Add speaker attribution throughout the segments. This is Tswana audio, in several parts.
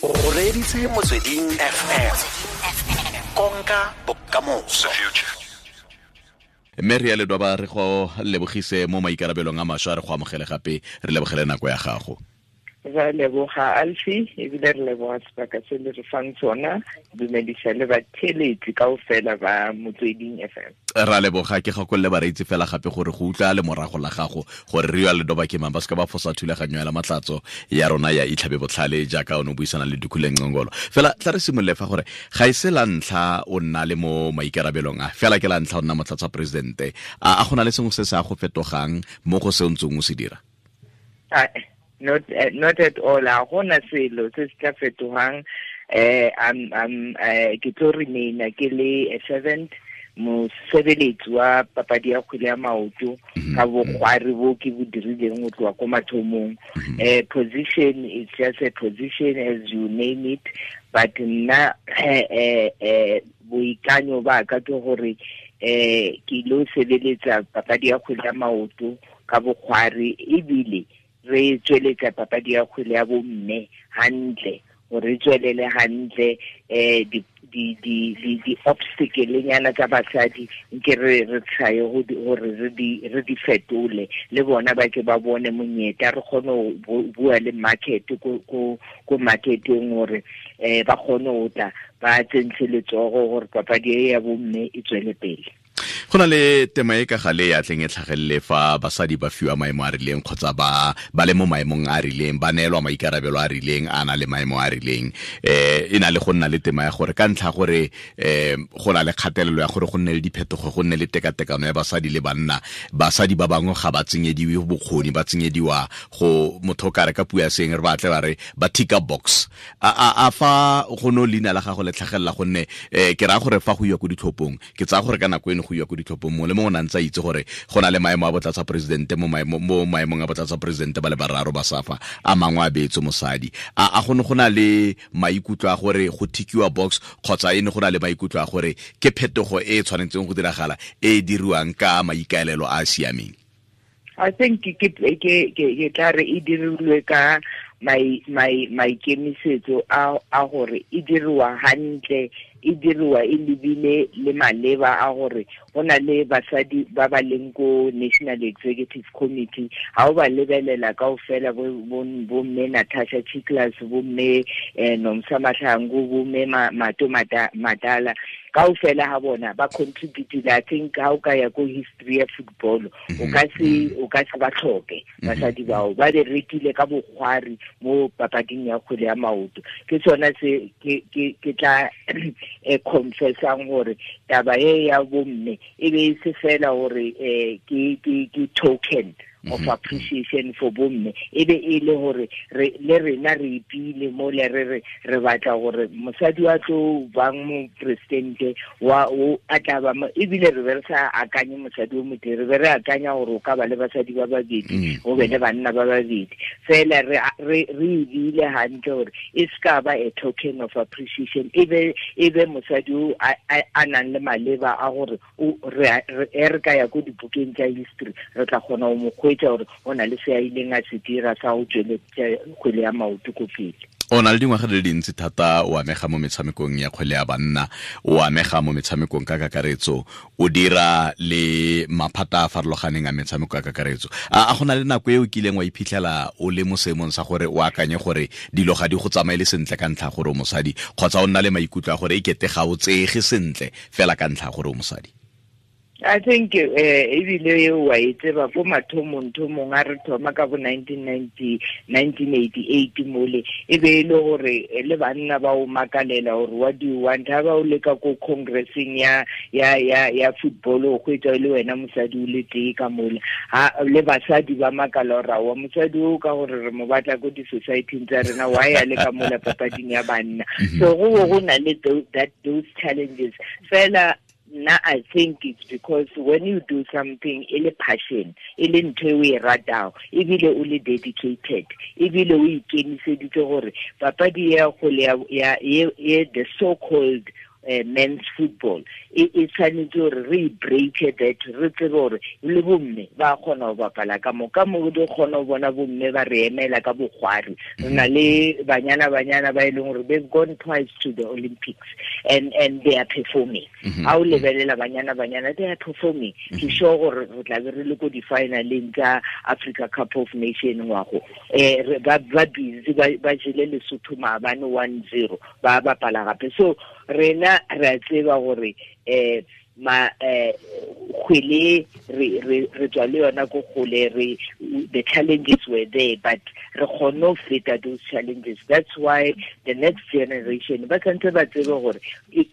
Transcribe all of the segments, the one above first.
Speaker 1: O reditse Motsweding FM, konka bokamoso.
Speaker 2: Mme re ya ledwa re go lebogise mo maikarabelong a mašwa, re go amogele gape, re lebogele nako ya gago.
Speaker 3: Re leboga Alfie, ebile re leboga sebaka se le re fang sona. Dumedisa le batheletsi kaofela ba Motsweding FM.
Speaker 2: Ra leboga. Ke gakolole bareetsi fela gape gore go utlwa le morago la gago gore re ya ledoba ke mang, ba seka ba fosa thulaganyo ya la matlatso ya rona ya Itlhabe Botlhale jaaka o ne o buisana le Dukhule Ngcongolo. Fela tla re simolole fa gore ga e se la ntlha o nna le mo maikarabelong a, fela ke la ntlha o nna motlatsa presidente. A go na le sengwe se se a go fetogang mo go se o ntseng o se dira?
Speaker 3: Not at all. A gona selo se se tla fetogang. I'm ke tlo remaina ke le a servant, mosebeletsi wa papadi ya kgwele ya maoto ka bokgwari bo ke bo dirileng go tloga ko mathomong. Position is just a position as you name it, but nna boikanyo ba ka ke gore ke lo sebeletsa papadi ya kgwele ya maoto ka bokgwari, ebile re tsweletsa papadi ya kgwele ya bomme hantle, gore re tswelele hantle. Di obstacle nyana tsa basadi nke re try gore re di fetole, le bona ba ke ba bone monyetla, re kgone go bua le market ko marketeng gore ba kgone go tla ba tsentshe letsogo gore papadi e ya bomme e tswele pele.
Speaker 2: Go na le tema e ka gale ya tleng e tlhagelele fa basadi ba fiwa maemo a rileng kgotsa ba le mo maemong a rileng, ba neelwa maikarabelo a rileng, a na le maemo a rileng, e na le go nna le tema ya gore ka ntlha gore go na le kgatelelo ya gore go nne le diphetogo, go nne le tekatekano ya basadi le banna, basadi ba bangwe ga ba tsenyediwe bokgoni, ba tsenyediwa go motho ka re ka puo ya seng re batle ba re ba ticka box. A fa go no leina la gago le tlhagelela, gonne ke raya gore fa go iwa ko ditlhophong, ke tsaya gore ka nako eno go iwa ko ditlhophong mongwe le mongwe o ne a ntse a itse gore go na le maemo a botlatsa presidente, mo maemong a botlatsa presidente ba le bararo ba SAFA, a mangwe a beetswe mosadi. A go ne go na le maikutlo a gore go tikiwa box, kgotsa e ne go na le maikutlo a gore ke phetogo e e tshwanetseng go diragala e e diriwang ka maikaelelo a a siameng?
Speaker 3: I think ke tla re e dirilwe ka maikemisetso a gore e diriwa hantle, e diriwa e lebile le maleba a gore go na le basadi ba ba leng ko National Executive Committee. Ha o ba lebelela kaofela, bo mme Natasha Tsichlas, bo mme Nomsa Mahlangu, bo mme Mato Madala, kaofela ha bona ba contribute. I think ha o ka ya ko history ya football, o ka se ba tlhoke basadi bao, ba berekile ka bokgwari mo papading ya kgwele ya maoto. Ke sona se ke tla confessang gore taba e ya bomme e be e se fela gore ke token of appreciation for bomme, e be e le gore le rena re ipile mo le re re batla gore mosadi wa tlo bang mo presidente wa o a tla ba, ebile re be re sa akanye mosadi o motee, re be re akanya gore o ka ba le basadi ba babedi, o be le banna ba babedi. Fela re ebile hantle gore e ska ba a token of appreciation, e be mosadi o a nang le maleba a gore re ka ya ko dibukeng tsa history, re tla kgona go mo kgwetsa gore o na le se a ileng a se dira sa go tsweletsa kgwele ya maoto ko pele.
Speaker 2: O na le dingwaga di le dintsi thata o amega mo metshamekong ya kgwele ya banna, o amega mo metshamekong ka kakaretso, o dira le maphata a farologaneng a metshameko ka kakaretso. A go na le nako e o kileng wa iphitlhela o le mo seemong sa gore o akanye gore dilo ga di go tsamaele sentle ka ntlha gore o mosadi, kgotsa o nna le maikutlo a gore e kete ga o tseege sentle fela ka ntlha gore o mosadi?
Speaker 3: I think ebile wa e tseba ko mathomong thomong a re thoma ka bo 1988 mole, e be e le gore le banna ba o makalela gore what do you want, ha ba o leka ko congressing ya football o hwetsa le wena mosadi o le tee ka mole, ha le basadi ba makala gore wa mosadi o ka gore re mo batla ko di-society tsa rena, wa ya le ka mola papading ya banna. So go na le those challenges fela. Now I think it's because when you do something, ele passion, ele ntho e o e ratang, ebile o le dedicated, ebile o ikemiseditse gore papadi ya kgwele ya the so-called Men's football e tshwanetse gore re break that, re tsebe gore le bomme ba kgona go bapala ka mo ka mo di kgona go bona bomme ba re emela ka bogwari. Re na le banyana banyana ba e leng gore they've gone twice to the Olympics and they are performing. Ha o lebelela banyana banyana, they are performing. Ke sure gore re tla be re le ko di-finaleng tsa Africa Cup of Nation ngwago. Ba busy ba jele Lesotho maabane 1-0 ba bapala gape. So rena re a tseba gore ma kgwele re tswa le yona ko kgole, re the challenges were there, but re kgonne ho feta those challenges. That's why the next generation ba tshwanetse ba tsebe gore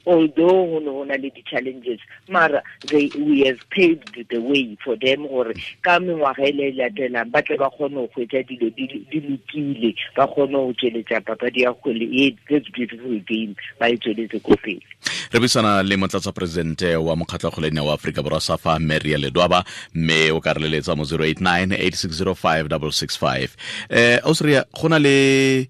Speaker 3: although ho ne ho na le di-challenges, mara we have paved the way for them gore ka mengwaga e le latelang ba tle ba kgone ho hwetša dilo di lokile, ba kgone ho tsweletsa papadi ya kgwele e, this beautiful game, ba e tsweletse ko pele.
Speaker 2: Re buisana le motlatsa presidente wa mokgatlho kgolene wa Aforika Borwa SAFA, Maria Ledwaba, mme o ka re leletsa mo 089 8605 665. Ausria, go na le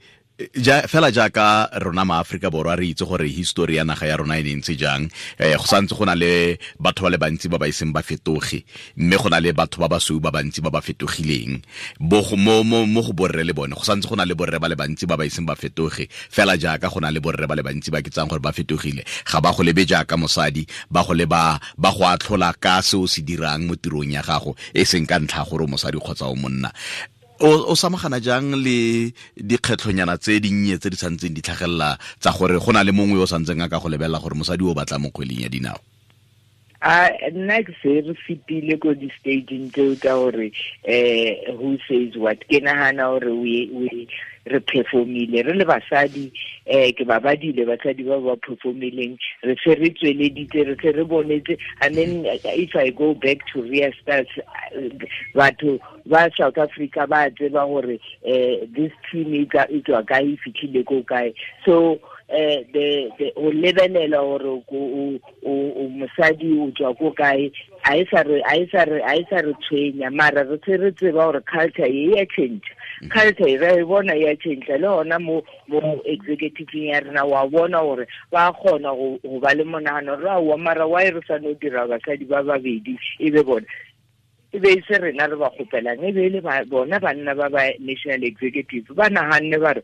Speaker 2: ja fela jaaka rona ma Afrika Borwa re itse gore history ya naga ya rona e ne ntse jang, go santse go na le batho ba le bantsi ba ba iseng ba fetoge, mme go na le batho ba basweu ba bantsi ba ba fetogileng. Bo mo mo go borre le bone go santse go na le borre ba le bantsi ba ba iseng ba fetoge, fela jaaka go na le borre ba le bantsi ba ke tsang gore ba fetogile. Ga ba go lebe jaaka mosadi, ba go leba ba go atlhola ka se o se dirang mo tirong ya gago, e seng ka ntlha gore o mosadi kgotsa o monna. O samagana jang le dikgetlhonyana tse dinnye tse di santseng di tlhagelela tsa gore go na le mongwe yo o santseng a ka go lebelela gore mosadi o batla mo kgweleng ya dinao?
Speaker 3: A nna ke se re fetile ko di-stageng tseo tsa gore who says what. Ke nahana gore we re performile re le basadi, ke ba badile basadi ba ba performileng, re se re tsweleditse, re se re bonetse. I mean, if I go back to Ria Stars, batho ba South Africa ba tseba gore this team e tswa kae, e fitlhile ko kae. So the o lebelela gore o mosadi o tswa ko kae, a e sa re tshwenya, mara re se re tseba gore culture e ya change. Culture e re bona ya change le hona mo executive ya rena, wa bona gore ba kgona go ba le monahano ra wa mara wa e re sa no dira basadi ba babedi e be bona e be se rena re ba kgopelang, e be le bona banna ba ba national executive ba nahanne ba re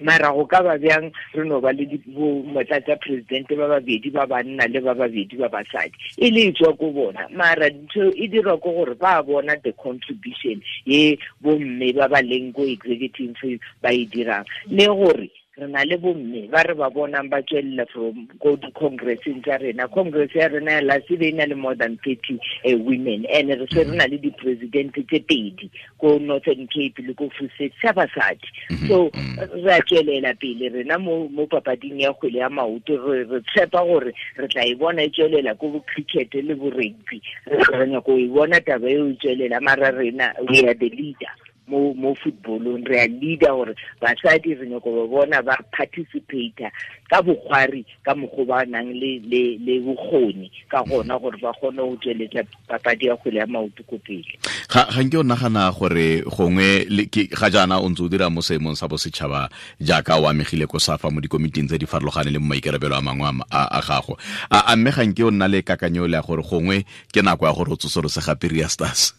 Speaker 3: mara go ka ba bjang re no ba le motlatsa presidente ba babedi ba banna le ba babedi ba basadi, e le tswa ko bona. Mara ntho e dirwa ko gore ba bona the contribution ye bomme ba ba leng ko executive ba e dirang, le gore re na le bomme ba re ba bonang ba tswelela from go di-congresseng tsa rena. Congress ya rena ya last e na le more than 30 women, and re se re na le di-president tse pedi ko Northern Cape le ko Free State tsa basadi. So re a tswelela pele rena mo papading ya kgwele ya maoto, re tshepa gore re tla e bona e tswelela ko bo cricket le bo rugby, re nyako e bona taba eo e tswelela. Mara rena we are the leader mo footballong, re a leader gore basadi re nyako ba bona ba participate ka bokgwari ka mokgwa ba nang le bokgoni ka gona gore ba kgone go tsweletsa papadi ya kgwele ya maoto ko pele.
Speaker 2: Ga nke o nagana gore gongwe ga jaana o ntse o dira mo seemong sa bosetšhaba jaaka o amegile ko SAFA mo dikomiting tse di farologaneng le mo maikarabelo a mangwe a gago, a mme ga nke o nna le kakanyo le ya gore gongwe ke nako ya gore o tsosolose gape Ria Stars?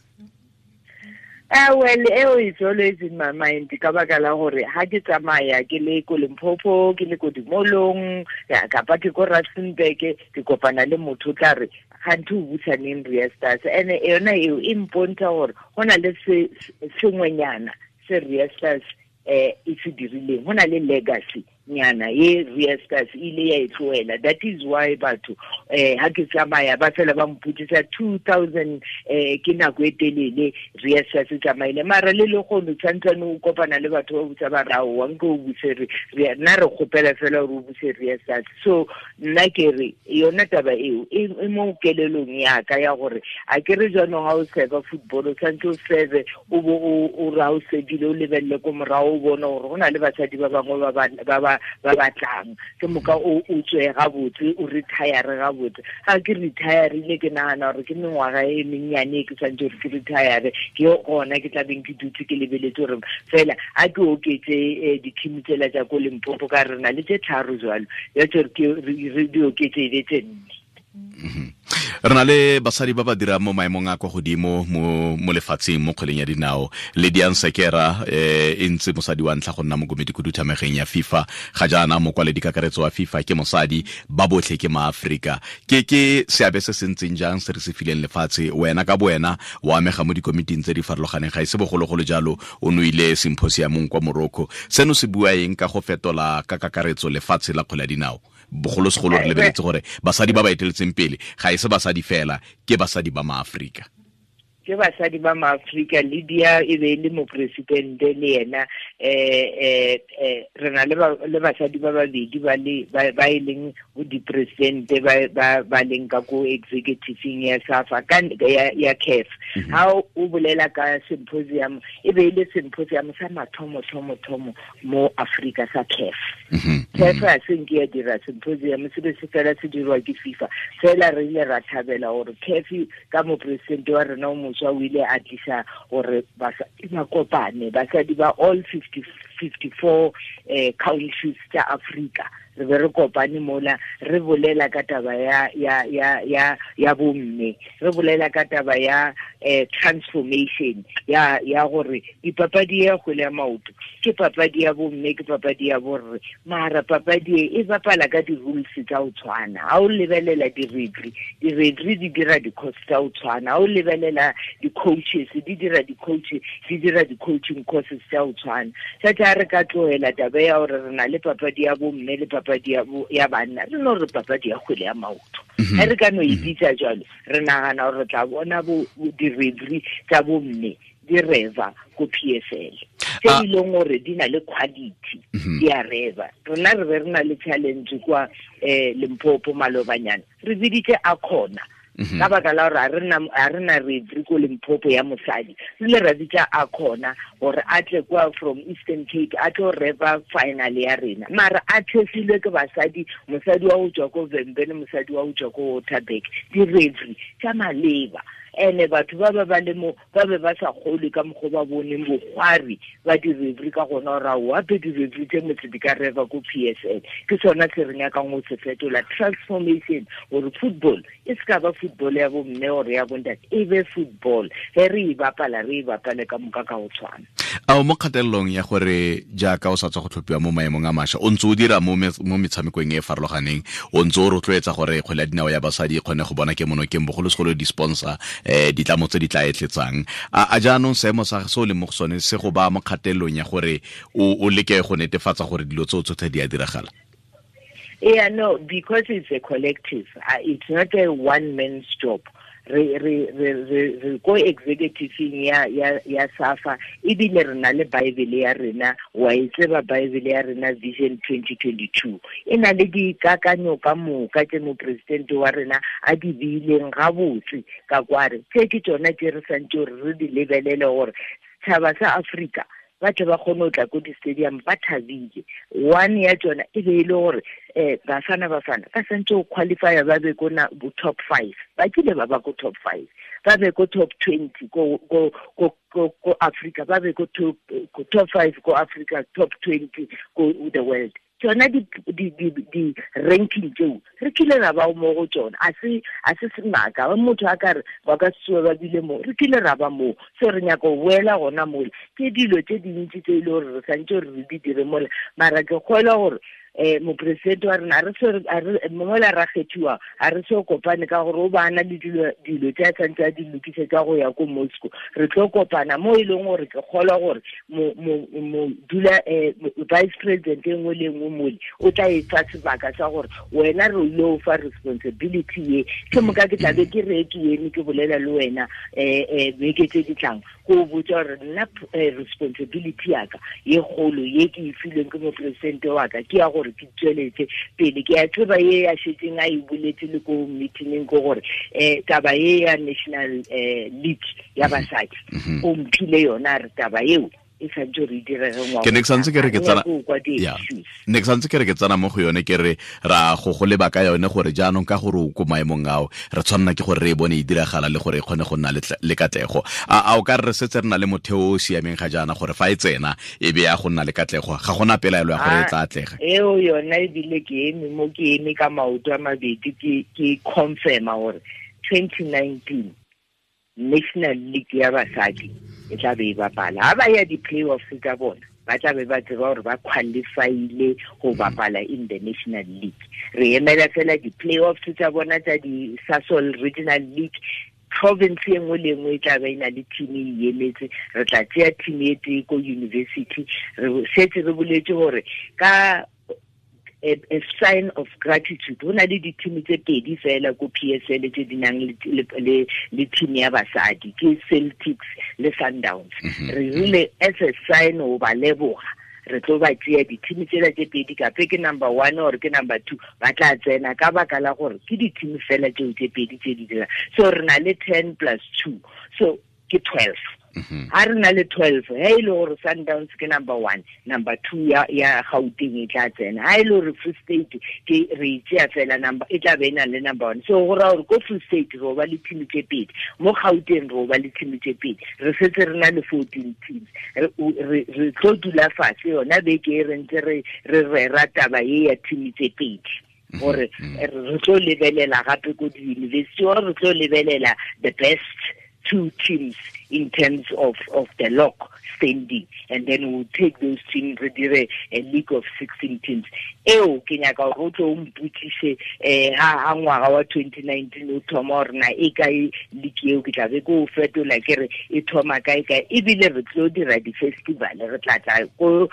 Speaker 3: Well, eo it's always in my mind ka baka la gore ha ke tsamaya ke le ko Limpopo, ke le ko Dimolong, kapa ke ko Rustenburg, ke kopana le motho tla re ganthe o busaneng Ria Stars, and yona eo e mpontsha gore go na le sengwenyana se Ria Stars e se dirileng, go na le legacy nyana ye Ria Stars ile ya e tlohela. That is why batho ha ke tsamaya ba fela ba mpotsisa 2000 ke nako e telele Ria Stars e tsamaile, mara le le kgono tshwantsane o kopana le batho ba botsa ba ra wa nke o buse re nna re kgopela fela gore o buse Ria Stars. So nna ke re yona taba eo e mo kelelong ya ka ya gore a ke re jaanong ha o serve football o tshwanetse o serve o bo o ra o sebile o lebelele ko morago o bone gore go na le basadi ba bangwe ba ba batlang. Ke moka o tswe ga botse, o retire ga botse. Ga ke retireile ke nagana gore ke mengwaga e mennyane ke tshwanetse gore ke retire, ke gona ke tla beng ke dutse ke lebeletse gore fela a ke oketse di-team tsela tsa ko Limpopo ka re na le tse 3 jalo, ya tsore ke re di oketse e be tse 4.
Speaker 2: Re na le basadi ba ba dirang mo maemong a kwa godimo mo lefatsheng mo kgweleng ya dinao. Lydia Nsekera e ntse mosadi wa ntlha go nna mokomedi khuduthamageng ya FIFA. Ga jaana mokwaledi kakaretso wa FIFA ke mosadi, ba botlhe ke maAfrika. Ke seabe se se ntseng jang se re se fileng lefatshe? Wena ka bowena o amega mo dikomiting tse di farologaneng, ga e se bogologolo jalo o noile symposiumong kwa Morocco. Seno se bua eng ka go fetola ka kakaretso lefatshe la kgwele ya dinao? Bogolosegolo re lebeletse gore basadi ba ba eteletseng pele ga e se basadi fela, ke basadi ba maAfrika.
Speaker 3: Ke basadi ba maAfrika. Lydia e be le mopresidente le yena, re na le basadi ba babedi ba e leng dipresidente ba leng ka ko executive ya SAFA ya CAF. Ha o bolela ka symposium, e be le symposium sa mathomo thomo thomo mo Afrika sa CAF. CAF a se nke ya dira symposium, se be se fela se dirwa ke FIFA. Fela re ile ra thabela gore CAF ka mopresidente wa rena o moswa o ile a tlisa gore basadi ba kopane, basadi ba all 54 countries tsa Afrika. Re be re kopane mola re bolela ka taba ya bomme, re bolela ka taba ya transformation ya gore dipapadi ya kgwele ya maoto ke papadi ya bomme, ke papadi ya borre, mara papadi e bapala ka di-rules tsa ho tshwana. Ha o lebelela di-referee, di-referee di dira di-course tsa ho tshwana. Ha o lebelela di-coaches, di dira di-coach, di dira di-coaching courses tsa ho tshwana. Tsa re ka tlohela taba ya hore re na le papadi ya bomme le papadi ya banna, re no re papadi ya kgwele ya maoto. Ha re ka no e bitsa jwalo, re nagana gore re tla bona bo di-referee tsa bomme di reva ko PSL tse e leng gore di na le quality, di a reva. Rona re be re na le challenge kwa Limpopo malobanyana, re biditse Akhona ka baka la gore a re na referee ko Limpopo ya mosadi, re ile ra bitsa Akhona gore a tle kwa from Eastern Cape a tlo reva final ya rena, mara a thefilwe ke basadi, mosadi wa ho tswa ko Vhembe le mosadi wa ho tswa ko Waterberg, di-referee tsa maleba. Ene batho ba ba le mo ba be ba sa kgolwe ka mokgwa ba boneng bokgwari ba di-referee ka gona gore ao ape di-referee tse motse di ka reva ko PSL. Ke sona se re nyakang go se fetola, transformation, gore football e se ka ba football ya bomme gore ya bontate, e be football ge re e bapala, re e bapale ka moka ka go tshwana.
Speaker 2: A o mo kgatelelong ya gore jaaka o sa tswa go tlhophiwa mo maemong a mašwa, o ntse o dira mo metshamekong e e farologaneng, o ntse o rotloetsa gore kgwele ya dinao ya basadi e kgone go bona kemonokeng, bogolosegolo di-sponsor, ditlamo tse di tla etletsang. A jaanong seemo sa se o leng mo go sone se go ba mo kgatelelong ya gore o leke go netefatsa gore dilo tseo tsotlhe di a diragala?
Speaker 3: Yeah, no, because it's a collective. It's not a one man's job. Re ko executive ya SAFA, ebile re na le Bible ya rena, wa e tseba Bible ya rena Vision 2022. E na le dikakanyo ka moka tse mopresidente wa rena a di beileng gabotse ka kware. Tse ke tsona tse re santse gore re di lebelele gore setšhaba sa Afrika ba tle ba kgone go tla ko di-stadium ba thabile. One ya tsona e be e le gore bafana ba santse go qualifya ba be ko top 5, ba kile ba ba ko top 5, ba be ko top 20 ko Africa, ba be ko top 5 ko Africa, top 20 ko the world. Tsona di ranking tseo re kile ra ba mo go tsona, a se semaka ba motho a ka re ba ka tsoa ba bile mo, re kile ra ba mo. So re nyaka go boela gona mola, ke dilo tse dintsi tse e le gore re santse gore re di dire mola, mara ke kgolwa gore mopresidente wa rena a re mola ra kgethiwa, a re se kopane ka gore o bana le dilo tse a santse a di lokisetsa go ya ko Moscow. Re tlo kopana mo e leng gore ke kgolwa gore mo dula vice president e nngwe le nngwe mole o tla e fa sebaka sa gore wena re ile o fa responsibility ye, ke moka ke tlabe ke re ke eme ke bolela le wena beke tse di tlang go botsa gore nna responsibility ya ka ye kgolo ye ke e filweng ke mopresidente wa ka ke ya gore ke tsweletse pele. Ke a tseba ye ya šetseng a e boletse le ko meetingeng ko gore taba ye ya national league ya basadi o mphile yona, re taba eo e santse re direge ngwaga.
Speaker 2: Ke ne ke santse ke re ke tsena ne ke santse ke re ke tsena mo go yone, ke re ra go go leba ka yone gore jaanong ka gore o ko maemong ao re tshwanna ke gore re e bone e diragala le gore e kgone go nna le katlego. A o ka re setse re na le motheo o siameng ga jaana gore fa e tsena e be ya go nna le katlego, ga gona pelaelo ya gore e tla atlega?
Speaker 3: Eo yona ebile ke eme mo, ke eme ka maoto a mabedi, ke confirma gore 2019 National League ya basadi e tla be e bapala. Ha ba ya di-playoffs tsa bona, ba tla be ba tseba gore ba qualifyile go bapala in the National League. Re emela fela di-playoffs tsa bona tsa di-Sasol Regional League. Province e nngwe le nngwe e tla be e na le team e emetse. Re tla tseya team e tee ko university. Re setse re boletse gore ka a sign of gratitude, ho na le di-team tse pedi fela ko PSL tse di nang le team ya basadi, ke Celtics le Sundowns. Re rile as a sign ho ba leboga, re tlo ba tseya di-team tsela tse pedi, kape ke number 1 or ke number 2, ba tla tsena ka baka la gore ke di-team fela tseo tse pedi tse di dirang. So re na le 10 plus 2, so ke 12. Ha re na le 12, ha e le gore Sundowns ke number 1, number 2 ya Gauteng e tla tsena. Ha e le gore Free State ke re tseya fela number, e tla be e na le number 1. So go raya gore ko Free State re ba le team tse pedi, mo Gauteng re ba le team tse pedi, re setse re na le 14 teams. Re tlo dula fatshe yona beke e re ntse re rera taba e ya team tse pedi, gore re tlo lebelela gape ko di-university, or re tlo lebelela the best 2 teams in terms of the lock standing, and then we'll take those teams, re dire a league of 16 teams. Eo ke nyaka gore o tlo o mpotsise ha ngwaga wa 2019 o thoma gore na e kae league eo, ke tla be ke o fetola ke re e thoma kae kae. Ebile re tlo dira di-festival, re tla tla ko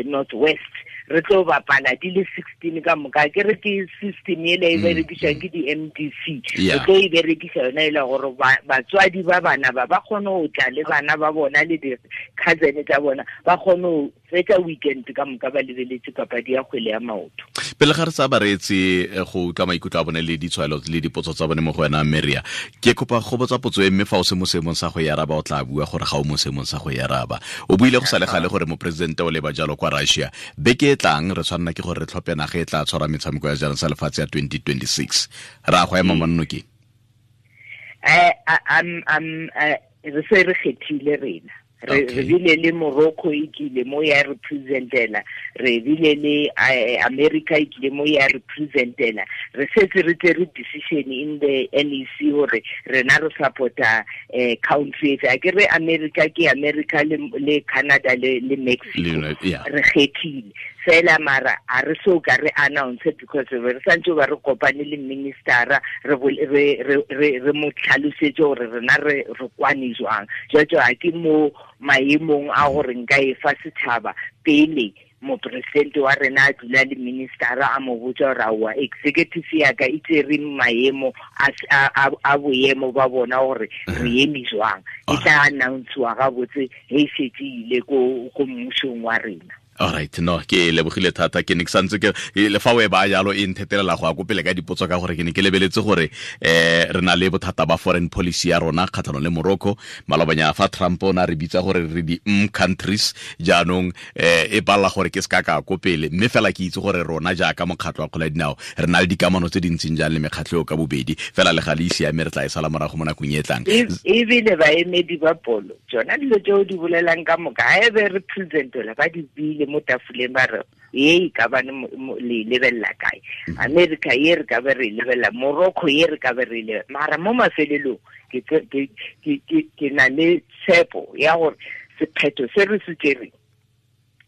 Speaker 3: North West, re tlo bapala di le 16 ka moka. Ke re ke system ele e berekiswang ke di-MDC, re tlo e berekisa yona e le gore batswadi ba bana ba kgone go tla le bana ba bona le di-cousin tsa bona, ba kgone go fetsa weekend ka moka ba lebeletse papadi ya kgwele ya maoto.
Speaker 2: Pele ga re sa bareetse go utlwa maikutlo a bone le ditshwaelo le dipotso tsa bone mo go wena Maria, ke kopa go botsa potso e mme fa o se mo seemong sa go e araba o tla bua gore ga o mo seemong sa go e araba. O buile go sa le gale gore moporesidente o leba jalo kwa Russia. Beke e tlang re tshwanela ke gore re tlhophe naga e tla tshwara metshameko ya jaanong sa lefatshe ya 2026. Ra go ema monnokeng?
Speaker 3: Re se re kgethile rena. Re bile le Morocco e kile mo ya representela, re bile le America e kile mo ya representela. Re setse re tsere decision in the NEC gore rena re supporta country efe. A ke re America ke America le Canada le Mexico, re kgethile fela, mara a re so ka re announce because re santse ba re kopane le ministera, re mo tlhalosetse gore rena re kwane jwang. Jwale ha ke mo maemong a gore nka e fa setšhaba pele moporesidente wa rena a dula le ministera a mo botsa gore aowa executive ya ka e tsere maemo a boemo ba bona gore re eme jwang. E tla announcewa gabotse ge e setse ile ko mmusong wa rena.
Speaker 2: All right, no, ke lebogile thata. Ke ne ke santse ke le fa o e ba jalo e nthetelela go ya ko pele ka dipotso ka gore ke ne ke lebeletse gore re na le bothata ba foreign policy ya rona kgatlhanong le Morocco. Malobanya fa Trump o na re bitsa gore re di countries, jaanong e palla gore ke se ka ka ko pele, mme fela ke itse gore rona jaaka mokgatlho wa kgwele ya dinao re na le dikamano tse dintseng jang le mekgatlho eo ka bobedi, fela le ga le ise ame re tla e sala morago mo nakong e tlang.
Speaker 3: Ebile baemedi ba polo tsona dilo tseo di bolelang ka moka ga e be re presentela ba di bile mo tafoleng ba re ye e ka bane le lebelela kae, America ye re ka be re lebelela, Morocco ye re ka be re lebelela. Mara mo mafelelong ke na le tshepo ya gore sephetho se re se tsereng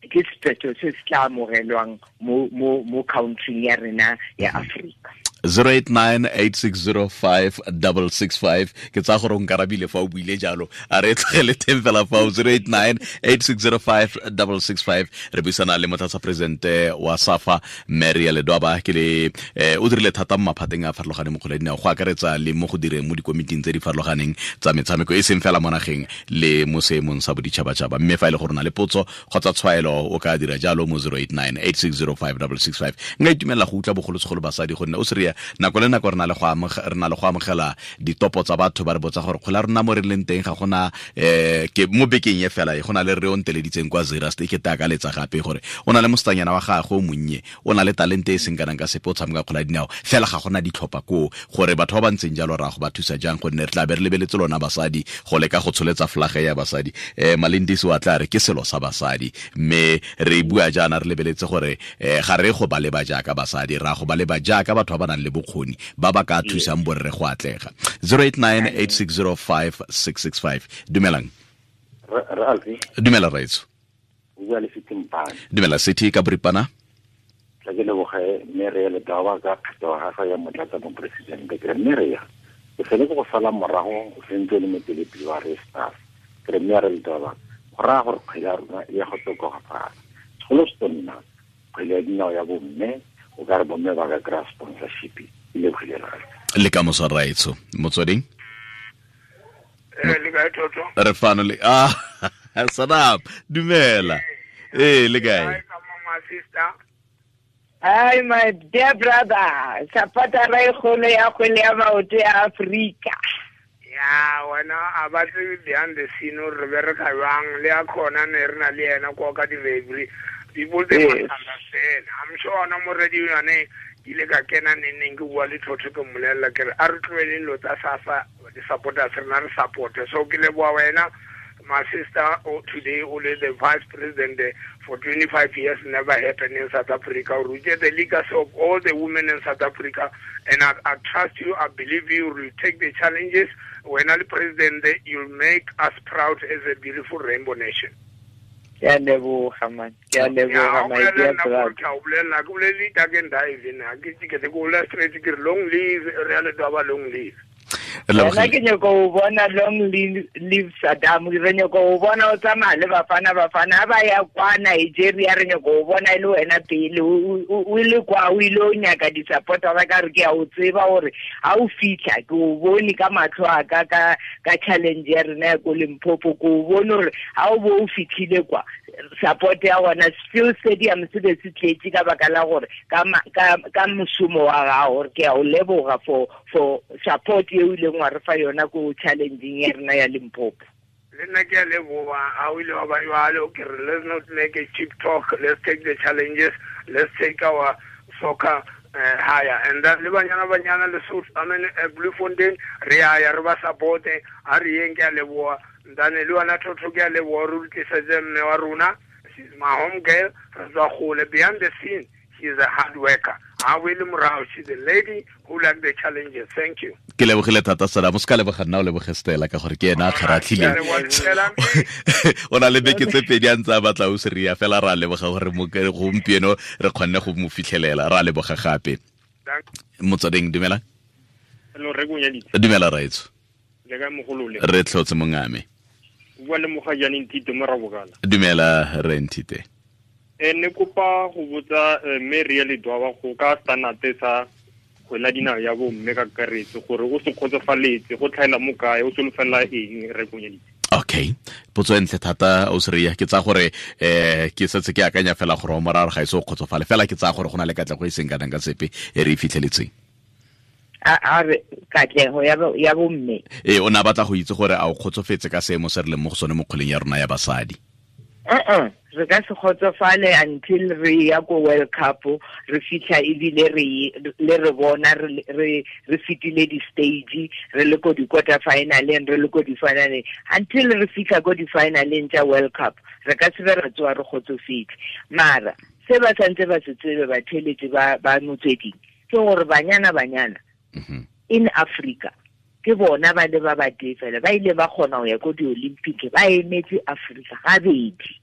Speaker 3: ke sephetho se se tla amogelwang mo country ya rena ya Afrika.
Speaker 2: 089-8605-665 ke tsa gore o nkarabile fa o buile jalo, a re tlogele teng fela fao. 089-8605-665 re buisana le motlatsa presidente wa SAFA Maria Ledwaba. Ke le o dirile thata mo maphateng a farologaneng mo kgwele ya dinao, go akaretsa le mo go direng mo dikomiting tse di farologaneng tsa metshameko e seng fela mo nageng le mo seemong sa boditšhabatšhaba. Mme fa e le gore o na le potso kgotsa tshwaelo o ka dira jalo mo 089-8605-665. Nka itumelela go utlwa bogolosegolo basadi gonne o se Nako le nako re na le go amogela ditopo tsa batho ba re botsa gore kgwele ya rona mo re leng teng ga gona ke mo bekeng e fela e go na le re o nteleditseng kwa Zeerust e ke te akaletsa gape gore o na le mosetsanyana wa gagwe o monnye, o na le talente e seng kanang ka sepe, o tshameka kgwele ya dinao fela ga gona ditlhopha koo, gore batho ba ba ntseng jalo ra go ba thusa jang, gonne re tla be re lebeletse lona basadi go leka go tsholetsa flage ya basadi. Malindisi wa tla re ke selo sa basadi, mme re bua jaana re lebeletse gore ga re go ba leba jaaka basadi, ra go ba leba jaaka batho ba ba nang le bokgoni ba ba ka thusang borre go atlega. 0898605665. Dumelang. Dumela raitso. Dumela City ka boripana.
Speaker 4: Tla ke leboge mme re le dawa ka kgetho ga ya motlatsa mopresidente, ke re mme re ya ke fele go sala morago o sentse le motelepele wa re staff, ke re mme re le dawa go raya gore kgwele ya rona e ya go tokafala. Segolo se nna kgwele ya dinao ya bomme, o ka re bomme ba ka kry-a sponsorship e le kgwele
Speaker 2: le ka moso raitso. Motsweding
Speaker 5: le kae Toto?
Speaker 2: Re fano le Sadam, dumela. Le kae?
Speaker 3: Hi my dear brother, supporter ra kgolo ya kgwele ya maoto ya Afrika.
Speaker 5: Ya wena a ba tsebe behind the scene re bereka jwang, le a khona ne re na le yena kwa ka di-referee. People they must understand. I'm sure ona mo radio yone ke ile ka kena neneng ke bua le Thotho ke mmolelela ke re a re tloheleng dilo tsa SAFA, di-supporters rena re support-e. So ke leboha wena my sister, today only the vice president for 25 years, never happened in South Africa. We get the legacy of all the women in South Africa, and I trust you, I believe you will take the challenges. When I'm president, you'll make us proud as a beautiful rainbow nation.
Speaker 3: Ke a leboga man, ke a leboga my dear brother.
Speaker 5: Long live Rea Ledwaba, long live.
Speaker 3: Nna ke nyaka go bona long live Saddam, re nyaka go bona o tsamaya le Bafana Bafana ba ya kwa Nigeria, re nyaka go bona e le wena pele o le kwa o ile o nyaka di-supportera ka re ke a o tseba gore ha o fitlha ke o bone ka matlho a ka ka challenge ya rena ya ko Limpopo, ke o bone gore ha o bo o fitlhile kwa support ya gona still stadium se be se tletse ka baka la gore ka mošomo wa gago, gore ke a o leboga for support e o ileng wa re fa yona ko challenging ya rena ya Limpopo.
Speaker 5: Le nna ke a leboga ha o ile wa ba jwalo, ke re let's not make a cheap talk, let's take the challenges, let's take our soccer higher. And then le banyana banyana le South, I mean Bloemfontein re a ya re ba support, a re yeng ke a leboga. Ndane le wena Thotho ke a leboga re tlisetse mme wa rona, she's my home girl, re tswa gole behind the scene, she is a hard worker. Ha o le morao, she's a lady who like the challenges. Thank you.
Speaker 2: Ke lebogile thata Sadam, o se ka leboga nna, o leboge Stella ka gore ke ena a kgaratlhileng. O na le beke tse pedi a ntse a batla o seria fela, ra leboga gore gompieno re kgonne go mo fitlhelela, ra leboga gape. Motsweding, dumela.
Speaker 6: Hello, re go
Speaker 2: Dumela raitso.
Speaker 6: Le ka mogolole.
Speaker 2: Re tlhotse mongame.
Speaker 6: Bua le mogajane Nthite mo Rabokala.
Speaker 2: Dumela re Nthite.
Speaker 6: Ne kopa go botsa mme Rea Ledwaba go ka standard sa kgwele ya dinao ya bomme ka kakaretso gore o se kgotsofaletse go tlhaela mo kae, o solofela eng re konyeditse.
Speaker 2: Okay, potso e ntle thata o seria, ke tsa gore ke setse ke akanya fela gore o moraro ga ise o kgotsofale fela, ke tsa gore go na le katlego e seng kanang ka sepe e re e fitlheletseng.
Speaker 3: A re katlego ya bomme.
Speaker 2: O ne a batla go itse gore a o kgotsofetse ka seemo se re leng mo go sone mo kgweleng ya rona ya basadi.
Speaker 3: Re ka se kgotsofale until re ya ko World Cup, re fitlha ebile re le re bona re fetile di-stage, re le ko di-quarter finaleng, re le ko di-finaleng, until re fitlha ko di-finaleng tsa World Cup, re ka se be re tsoa re kgotsofetse. Mara se ba santse ba se tsebe batheletsi ba motsweding ke gore banyana banyana in Africa ke bona ba le ba ba tee fela ba ile ba kgona go ya ko di-Olympic, ba emetse Africa gabedi,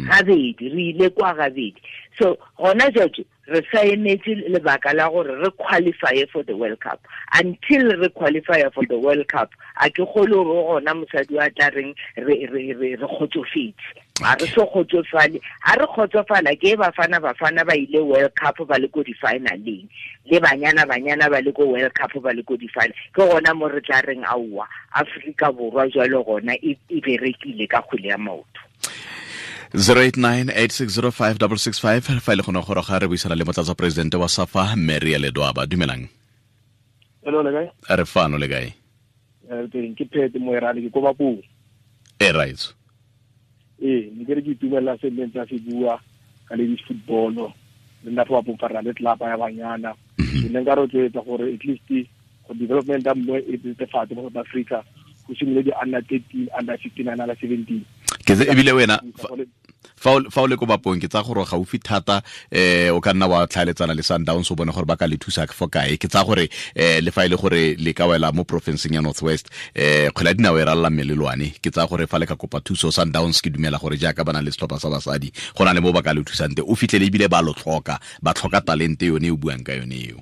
Speaker 3: gabedi re ile kwa gabedi. So gona jwale re sa emetse lebaka la gore re qualify for the World Cup. Until re qualify for the World Cup, a ke kgolo gore gona mosadi wa tla reng re kgotsofetse. A re so kgotsofale, a re kgotsofala ke Bafana Bafana ba ile World Cup ba le ko di-finaleng, le banyana banyana ba le ko World Cup ba le ko di-final, ke gona mo re tla reng aowa Afrika Borwa jwalo gona e berekile ka kgwele ya maoto.
Speaker 2: 089 860 5665 fa ile gone gore ga re buisana le motlatsa presidente wa SAFA, Maria Ledwaba. Dumelang.
Speaker 7: Hello, le kae?
Speaker 2: Re fano, le kae?
Speaker 7: Teng, ke phete moerane, ke ko Bapong.
Speaker 2: E right.
Speaker 7: Ee, ne ke re ke itumelela se nne ntse se bua ka ladies football. Le nna fa Bapong fa re na le tlelapa ya banyana. Ke ne nka rotloetsa gore at least go development ya mme e tsetefatse mo South Africa, go simolole di-under 13, under 15, under 17.
Speaker 2: Ke ebile wena fa o le ko Bapong, ke tsa gore gaufi thata, o ka nna wa tlhaeletsana le Sundowns, o bone gore ba ka le thusa fo kae. Ke tsa gore le fa e le gore le ka wela mo provinceng ya North West, kgwele ya dinao e ralala melelwane. Ke tsa gore fa le ka kopa thuso Sundowns, ke dumela gore jaaka ba na le setlhopha sa basadi, go na le mo ba ka le thusang te, o fitlhele ebile ba lo tlhoka, ba tlhoka talente yone e o buang ka yone eo.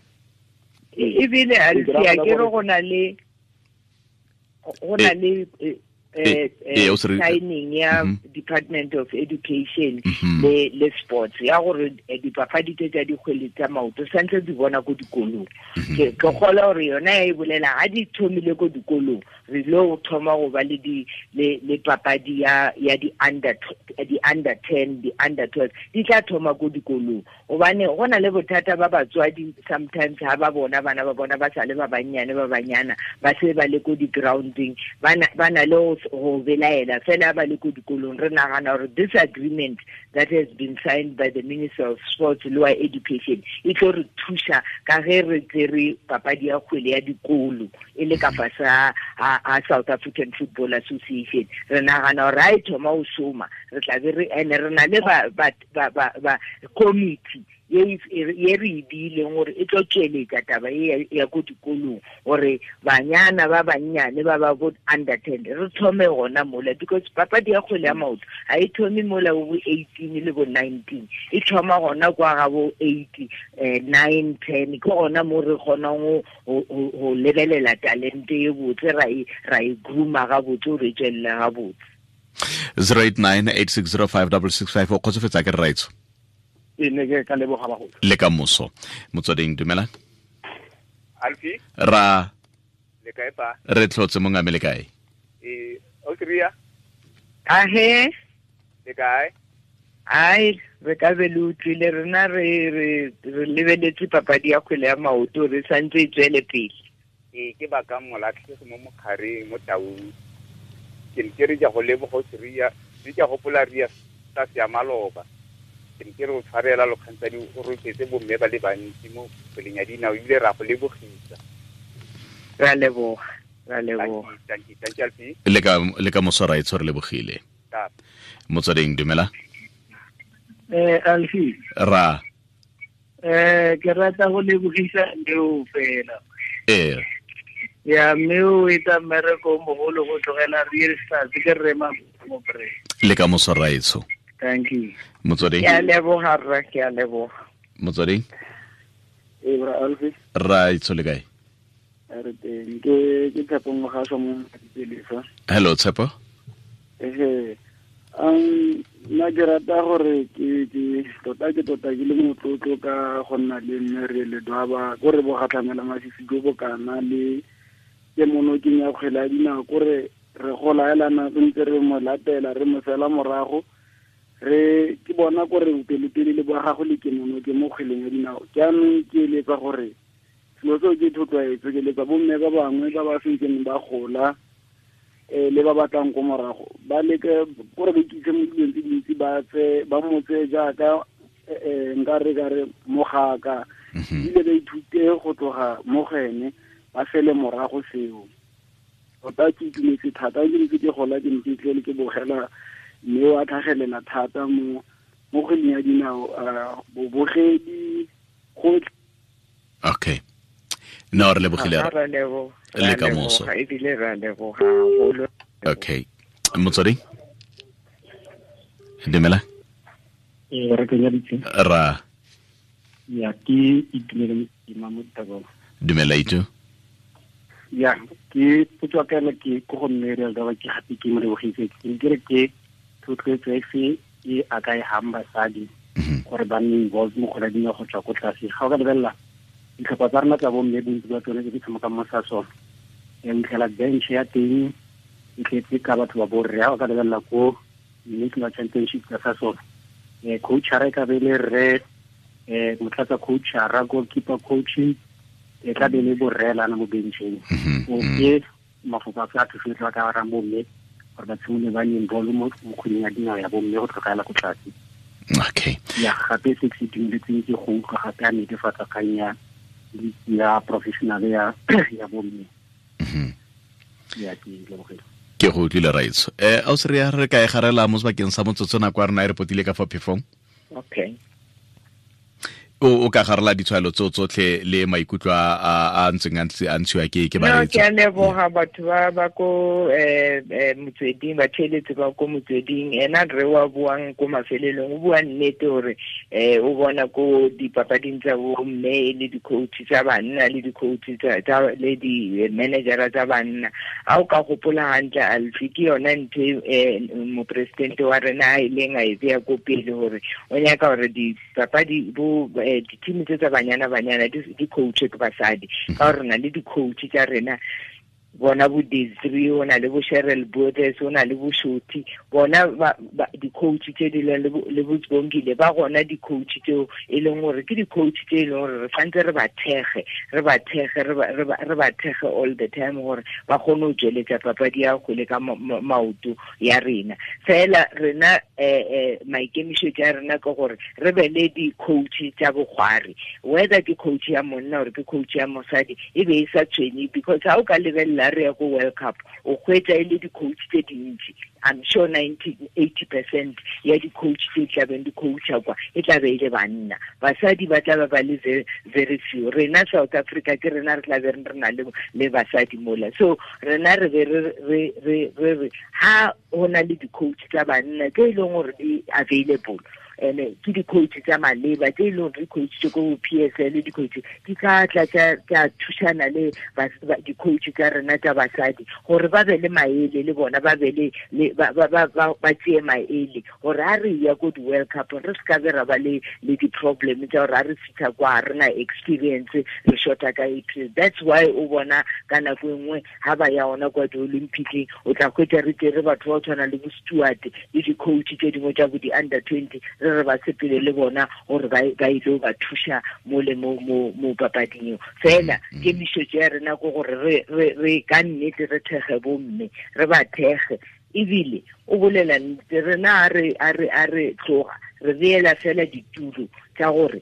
Speaker 3: Ebile a ke re go na le signing ya Department of Education le Sports ya gore dipapadi tse tsa dikgwele tsa maoto santse di bona ko dikolong. Ke kgola gore yona e bolela ga di thomile ko dikolong, re lo thoma go ba le di le papadi ya di under 10, di under 12, di tla thoma ko dikolong, gobane go na le bothata ba batswadi sometimes ha ba bona bana ba bona ba sa le ba bannyane, ba banyana ba se ba le ko di-grounding, ba na le go belaela fela ba le ko dikolong. Re nagana gore this agreement that has been signed by the Minister of Sports le wa Education e tlo re thusa ka ge re tsere papadi ya kgwele ya dikolo e le ka fase a South African Football Association. Re nagana gore ha e thoma go šoma, re tla be re ene re na le ba committee ye re e beileng gore e tlo tsweletsa taba e ya ko dikolong, gore banyana ba bannyane ba ba bo under 10 re thome gona mola, because papadi ya kgwele ya maoto ga e thome mola bo 18 le bo 19, e thoma gona kwa ga bo 8, 9, 10. Ke gona mo re kgonang go lebelela talente e botse, ra e grooma gabotse gore e tswelele gabotse.
Speaker 2: 089 860 5665. O kgotsofetsa ke rraitso?
Speaker 7: E ne ke ka leboga bagolo.
Speaker 2: Le ka moso. Motsweding, dumela.
Speaker 8: Alfi.
Speaker 2: Ra.
Speaker 8: Le kae pa?
Speaker 2: Re tlhotse, mongame, le kae?
Speaker 8: E o kria.
Speaker 3: Ahe.
Speaker 8: Le kae?
Speaker 3: Ai, re ka be le utlwile rena re lebeletse papadi ya kgwele ya maoto, re santse e tswele pele.
Speaker 8: E ke baka molatlhegi mo mokgareng mo Taung. Ke ne ke re ke go leboga o seria, re ke gopola ria sa ya maloba. Ke ne ke re o tshwarela lokgantsadi, o rotetse bomme ba le bantsi mo kgweleng ya dinao, ebile ra go lebogisa.
Speaker 3: Ra leboga, ra leboga.
Speaker 8: Thank you, thank you, Alfi.
Speaker 2: Le ka moso, raitsho, re lebogile. Motsweding, dumela.
Speaker 9: Alfi.
Speaker 2: Ra.
Speaker 9: Ke rata go lebogisa leo fela.
Speaker 2: Ee.
Speaker 9: Ya mme o etsa mmereko o mogolo go tlogela Real Stars, ke rre mo pre.
Speaker 2: Le ka moso, raitsho.
Speaker 9: Thank you.
Speaker 2: Motsweding.
Speaker 3: Ke a leboga rra, ke a leboga.
Speaker 2: Motsweding.
Speaker 10: E bra Alfi.
Speaker 2: Raitsho, le kae?
Speaker 10: Re teng, ke Tshepo Mogasho mo Dipelesa.
Speaker 2: Hello, Tshepo.
Speaker 10: Ehe, nna ke rata gore ke tota ke tota ke le motlotlo ka go nna le mme re le Dwaba, ko re bogatlhamela masisi jo bokana le ke monokeng ya kgwele ya dinao, kore re gola elana re ntse re mo latela, re mo sela morago, re ke bona kore bopelotelele ba gago le kemonoke mo kgweleng ya dinao. Jaanong ke eletsa gore selo seo ke thotloetso, ke eletsa bomme ba bangwe ba ba sentseng ba gola, le ba batlang ko morago, ba leke kore ba ikitse mo dilong tse dintsi, ba tse ba motse jaaka nka re ka re mogaka, ebile ba ithute go tloga mo go ene, ba fele morago seo. Tota ke itumetse thata, ke ntse ke gola, ke ntse tlele ke bogela mme wa tlhagelela thata mo kgweleng ya dinao, bobogedi gotlhe.
Speaker 2: Okay, no, re lebogile.
Speaker 3: Ra leboga.
Speaker 2: Le ka moso.
Speaker 3: Ebile ra leboga haholo.
Speaker 2: Okay, motsweding, dumela.
Speaker 11: Ee, re kenyaditse.
Speaker 2: Ra.
Speaker 11: Ya, ke Itumele Mosima mo Thabong.
Speaker 2: Dumela, Itu.
Speaker 11: Ya, ke potso ya ka ena ke ko go mme Real Daba, ke gape ke mo lebogise. Ke ne ke re ke thotloetso efe e a ka e hang basadi gore ba nne involved mo kgwele ya dinao go tswa ko tlase? Ga o ka lebelela ditlhopha tsa rona tsa bomme, bontsi ba tsone tse di tshamekang mo Sasol, ya fitlhela bench ya teng e tletse ka batho ba borre. Ga o ka lebelela ko national championship tsa Sasol. Coach a ka be le re motlatsa coach a goalkeeper coaching e tla be le borrelana mo bencheng. O ke mafoko a tla thusetsa ka ra bomme gore ba tshimole ba nne involve mo kgweding ya dinao ya bomme go tlogela ko tlase.
Speaker 2: Okay.
Speaker 11: Ya gape se ke itumeletseng ke go utlwa gape a netefatsa kgang ya ya professional ya bomme. Ya ke lebogile.
Speaker 2: Ke go utlwile raitso. Ausi re re ka e garela mo sebakeng sa motsotso nako ya rena e re potile ka fa phefong.
Speaker 3: Okay.
Speaker 2: O ka garela ditshwaelo tseo tsotlhe le maikutlo a ntseng a ntshiwa ke bareetsi.
Speaker 3: No, ke a leboga batho ba ko motsweding, ba theeletse ba ko motsweding. Ena re wa buang ko mafelelong, o bua nnete gore o bona ko dipapading tsa bomme e le di-coach tsa banna le di-coach tsa le di-managera tsa banna. A o ka gopola hantle Alfi, ke yona ntho mopresidente wa rena a ileng a e beya ko pele gore o nyaka gore dipapadi bo di-team tse tsa banyana di coach ke basadi, ka gore re na le di-coach tsa rena bona bo Desiree, o na le bo Cheryl Bodes, o na le bo Shoti, bona di-coach tse di leng le bo Tsbongile, ba gona di-coach tseo e leng gore ke di-coach tse e leng gore re santse re ba thege all the time gore ba kgone go tsweletsa papadi ya kgwele ka maoto ya rena. Fela rena maikemišetšo a rena ke gore re be le di-coach tsa bokgwari, whether ke coach ya monna or ke coach ya mosadi, e be e sa tshwenye, because ha o ka lebelela re ya ko World Cup o hwetša e le di-coach tse dintsi. I'm sure 80% ya di-coach tse tlabeng di-coacha kwa e tla be e le banna, basadi ba tla ba le very few. Rena South Africa ke rena re tla be re na le basadi mola, so rena re be re ha ho na le di-coach tsa banna tse e leng gore di available, and ke di-coach tsa maleba tse e leng gore di-coach tse ko PSL, di-coach di tla tla tsa thušana le di-coach tsa rena tsa basadi gore ba be le maele le bona, ba be le ba tseye maele gore ha re ya ko di-World Cup re se ka be ra ba le di-problem tsa gore ha re fitlha kwa re na experience, re shorta ka experience. That's why o bona ka nako e nngwe ha ba ya ona kwa di-Olympiceng o tla hwetša re tere batho ba tshwana le bo Stewart le di-coach tse dingwe tsa bo di-under 20 re ba sepele le bona gore ba ile ba thuša mo le mo papading eo. Fela kemišetšo ya rena ke gore re ka nnete re thege bomme, re ba thege. Ebile o bolela nnete, rena a re tloga re beela fela ditulo tsa gore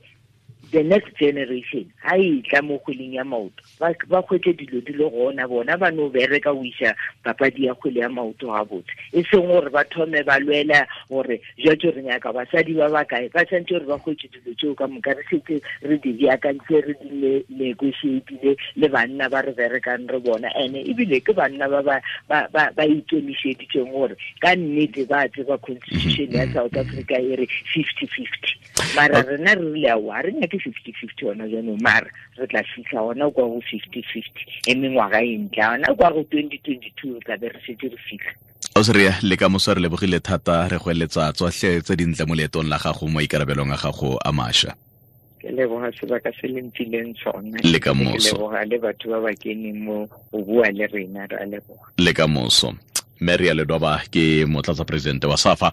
Speaker 3: the next generation ha e tla mo kgweleng ya maoto ba kgwetse dilo di le gona, bona ba no bereka o iša papadi ya kgwele ya maoto gabotse, e seng gore ba thome ba lwela gore jwatso re nyaka basadi ba bakae. Ba santse gore ba kgwetse dilo tseo ka moka, re setse re di beakantse, re di negotiatile le banna ba re berekang re bona, ene ebile ke banna ba ba ikemišeditseng gore ka nnete ba tseba constitution ya South Africa e re 50-50, mara rena re rile aowa re nyake 50-50 ona jaanong, mara re tla fitlha ona kwa go 50-50 e mengwaga e ntla ona kwa go 2022 re tla be re setse re fitlha.
Speaker 2: Ausi le ka moso re lebogile thata, re go eletsa tsotlhe tse dintle mo leetong la gago mo ikarabelong a gago a mašwa.
Speaker 3: Ke leboga sebaka se le mphileng sona.
Speaker 2: Le ka moso.
Speaker 3: Ke leboga le batho ba ba keneng mo go bua le rena, re a leboga.
Speaker 2: Le ka moso. Mary Ledwaba ke motlatsa presidente wa SAFA.